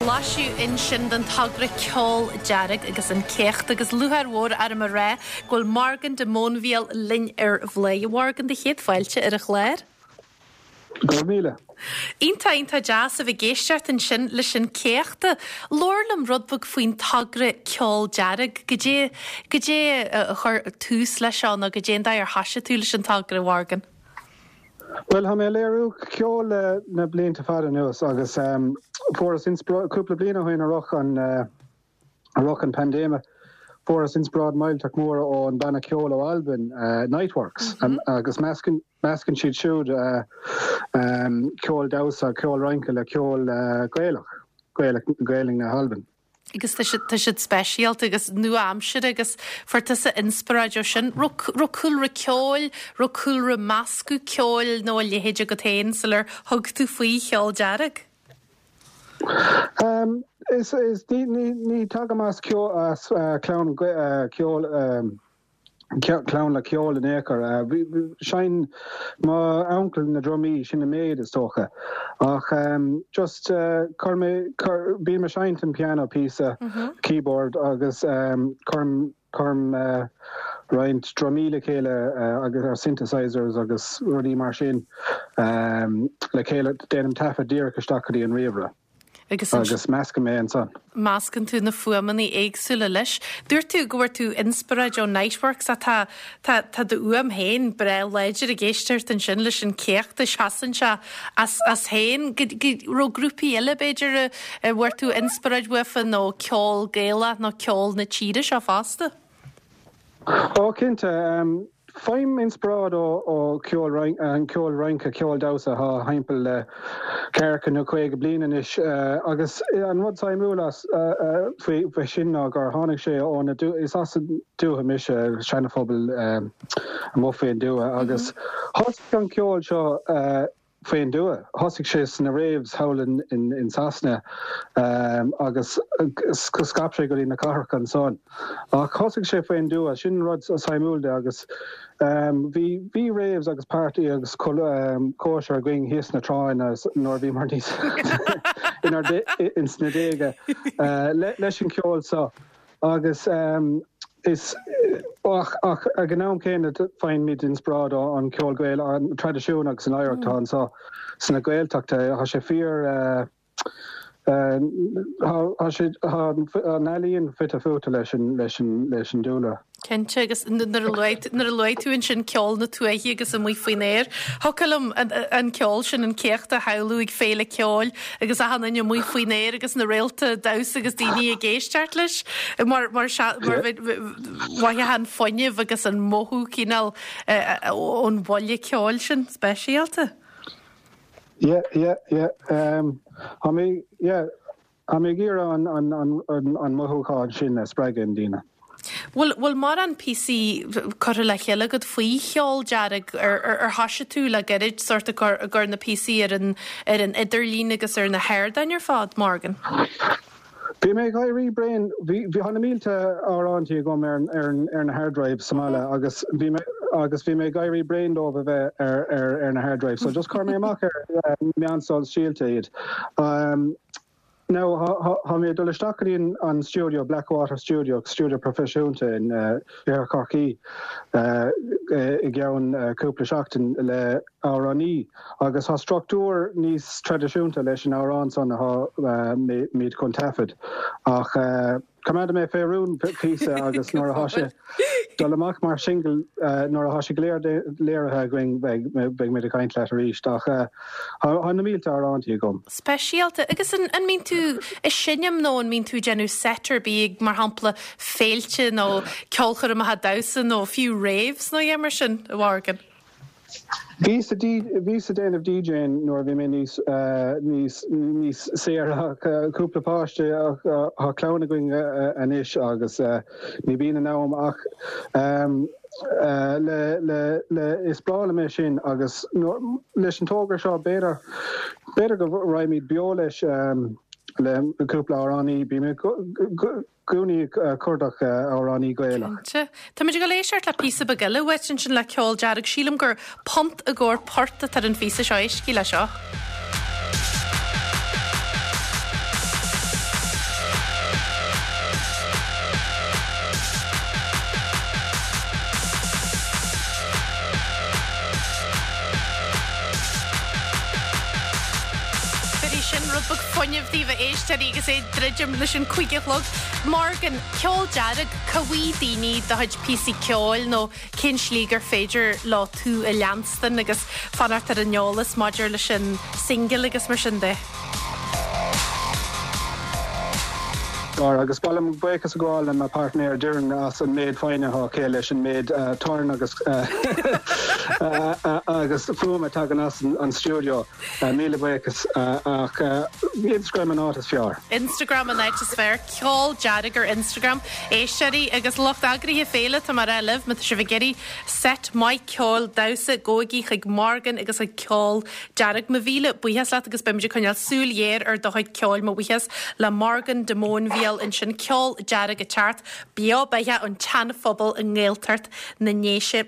Blaiseadh ansin den togra Ceol Dearg agus an Céacht agus lúcháir mhór orm a rá go bhfuil Morgan de Móinbhíol linn ar Bhladhaire. A Mhorgan, do chéad fáilte ar an chlár. Go raibh míle. Iontach, iontach deas a bheith ag éisteacht ansin leis an Céacht. Labhair liom rud beag faoin togra Ceol Dearg. Goidé, goidé a chuir tús leis seo nó goidé an dóigh ar thoisigh tú leis an togra, a Mhorgan? Bhuel, tá mé ag léiriú ceoil le na blianta fada anuas agus fuaireas inspioráid, cúpla bliain ó shin i rith an, i rith an paindéime, fuaireas inspioráid millteach mór ón banna ceoil ó Albain, Niteworks, agus meascann, meascann siad siúd ceol damhsa, ceol rince le ceol Gaelach, Gaelach, Gaelainn na hAlban. agus tá siad, tá siad speisialta agus nua-aimseartha agus fuair tusa inspioráid ó sin. Raibh, raibh cúlra ceoil, raibh cúlra meascadh ceoil nó a leithéid agat féin sular thug tú faoi Cheol Dearg? Um, is, is, ní, ní, ní tagaim as ceol, as clann ceoil, clann le ceol in aon chor. Sheinn mo uncail na drumaí, sin an méid is dócha. Ach just chuir mé, bím ag seinnt an piano píosa, keyboard agus cuirim, cuirim roinnt drumaí le chéile agus ar synthesizers agus rudaí mar sin le chéile, déanaim taifead díreach isteach go dtí an ríomhaire. Agus Agus meascaim é ansan. meascann tú na fuaimeanna éagsúla leis. Dúirt tú go bhfuair tú inspioráid ó Niteworks ach tá, tá, tá do fhuaim féin breá láidir ag éisteacht ansin leis an céacht, seasann sé as, as féin. Go, go raibh grúpaí eile b'fhéidir a, a bhfuair tú inspioráid uafa nó ceol Gaelach nó ceol na tíre seo fosta? Ó, cinnte. Faighim inspioráid ó cheol an ceol rince, ceol damhsa atá thimpeall le ceathracha nó 50 bliain anois agus an rud suimiúil as faoi sin ná gur tháinig sé ó na is as an dúiche mise, Seana-Phobal amuigh faoin dtuath agus thosaigh an ceol seo faoin dtuath. Thosaigh sé sna raves thall in Sasana agus scaip sé go dtí na cathracha ansan. Ach thosaigh sé faoin dtuath, sin an rud suimiúil de agus bhí bhí raves agus party agus cóisir againn thíos sna tránna nuair a bhíomar níos inár ins na déaga leis an cheol seo. Agus is ach ach ag an am céanna faighimid inspioráid ón cheol Gaelach, an traidisiún agus an oidhreacht atá anseo sna Gaeltachta. Tá sé fíor tá sé tá an ealaíon fite fuaite leis an leis an leis an dúlra. Cinnte, agus nuair a luaigh nuair a luaigh tú ansin ceol na tuaithe agus amuigh faoin aer, thiocfadh liom an ceol sin, an céacht a shamhlú ag féile ceoil agus achan duine amuigh faoin aer agus na réalta damhsa agus daoine ag éisteacht leis mar mar mar mhothaíonn an fuinneamh agus an mothú cineál ón bhuille ceoil sin speisialta. Yeah, yeah, yeah. Tá mé, yeah. Tá mé ag iarraidh an mothúchán sin a spreagadh i ndaoine. Bhfuil bhfuil mórán píosaí curtha le chéile agat faoi Cheol Dearg? Ar ar thoisigh tú le gairid sórt ag cur ag cur na píosaí ar an ar an idirlíon agus ar na hardáin ar fad, Morgan? Bhí mé ag éirí bréan, bhí bhí tá na mílte amhrántaí agam ar ar ar na hard drives sa mbaile agus bhí mé agus bhí mé ag éirí bréan dóibh a bheith ar ar ar na hard drives so just chuir mé amach ar meán sóisialta iad. Now, tá mé ag dul isteach go dtí an stiúideo, Blackwater Studio, stiúideo proifisiúnta in Iarthar Chorcaí i gceann cúpla seachtain le amhránaí agus tá struchtúr níos traidisiúnta leis an amhrán san atá muid chun taifead ach Coimeádfaidh mé fé rún píosa agus nuair atá sé dul amach mar singil, nuair atá sé go léir léirithe againn beidh muid ag caint leat arís. Ach tá na mílte amhrántaí agam. Speisialta. Agus an mbíonn tú ag seinm nó an mbíonn tú ag déanamh set ar bith ag, mar shampla, féilte nó ceolchoirmeacha damhsa nó fiú raves nó a dhath mar sin, a Mhorgan? Bhíos ag bhíos ag déanamh DJing nuair a bhí mé níos níos níos saoire ach cúpla páiste ach tá clann againn anois agus ní bhíonn an am ach le le le is breá liom é sin agus leis an togra seo b'fhéidir b'fhéidir go raghaimid beo leis le cúpla amhránaí bím i gcónaí ag cuardach amhránaí Gaelach. Cinnte. Táimid ag dul éisteacht le píosa beag eile uait ansin le Ceol Dearg. Sílim gur Punt i gcomhair Port atá ar an phíosa seo. Éistigí le seo. fuinnimh daoibh a éisteoirí agus é ag druidim leis an 5 a chlog. Morgan, Ceol Dearg, cá bhfaighidh daoine do chuid píosaí ceoil nó cén slí gur féidir leo tú a leanstan agus fanacht ar an eolas maidir leis an singil agus mar sin de? Lára, Agus ba mhaith liom buíochas a ghabháil le mo pháirtnéir Doireann as an méid foighne atá aici leis an méid torann agus agus fuaim a tagann as an stiúideo. Míle buíochas. Ach Instagram an áit is fearr. Instagram an áit is fearr. Ceol Dearg ar Instagram. Éisteoirí agus lucht eagraithe féile, tá mé ag rá libh, má tá sibh ag iarraidh set maith ceoil damhsa, gabhaigí chuig Morgan agus chuig Ceol Dearg. Mo mhíle buíochas leat agus beimid ag coinneáil súil ghéar ar do chuid ceoil. Mo bhuíochas le Morgan de Móinbhíol ansin. Ceol Dearg ag teacht beo beathach ón tSean-Phobal i nGaeltacht na nDéise.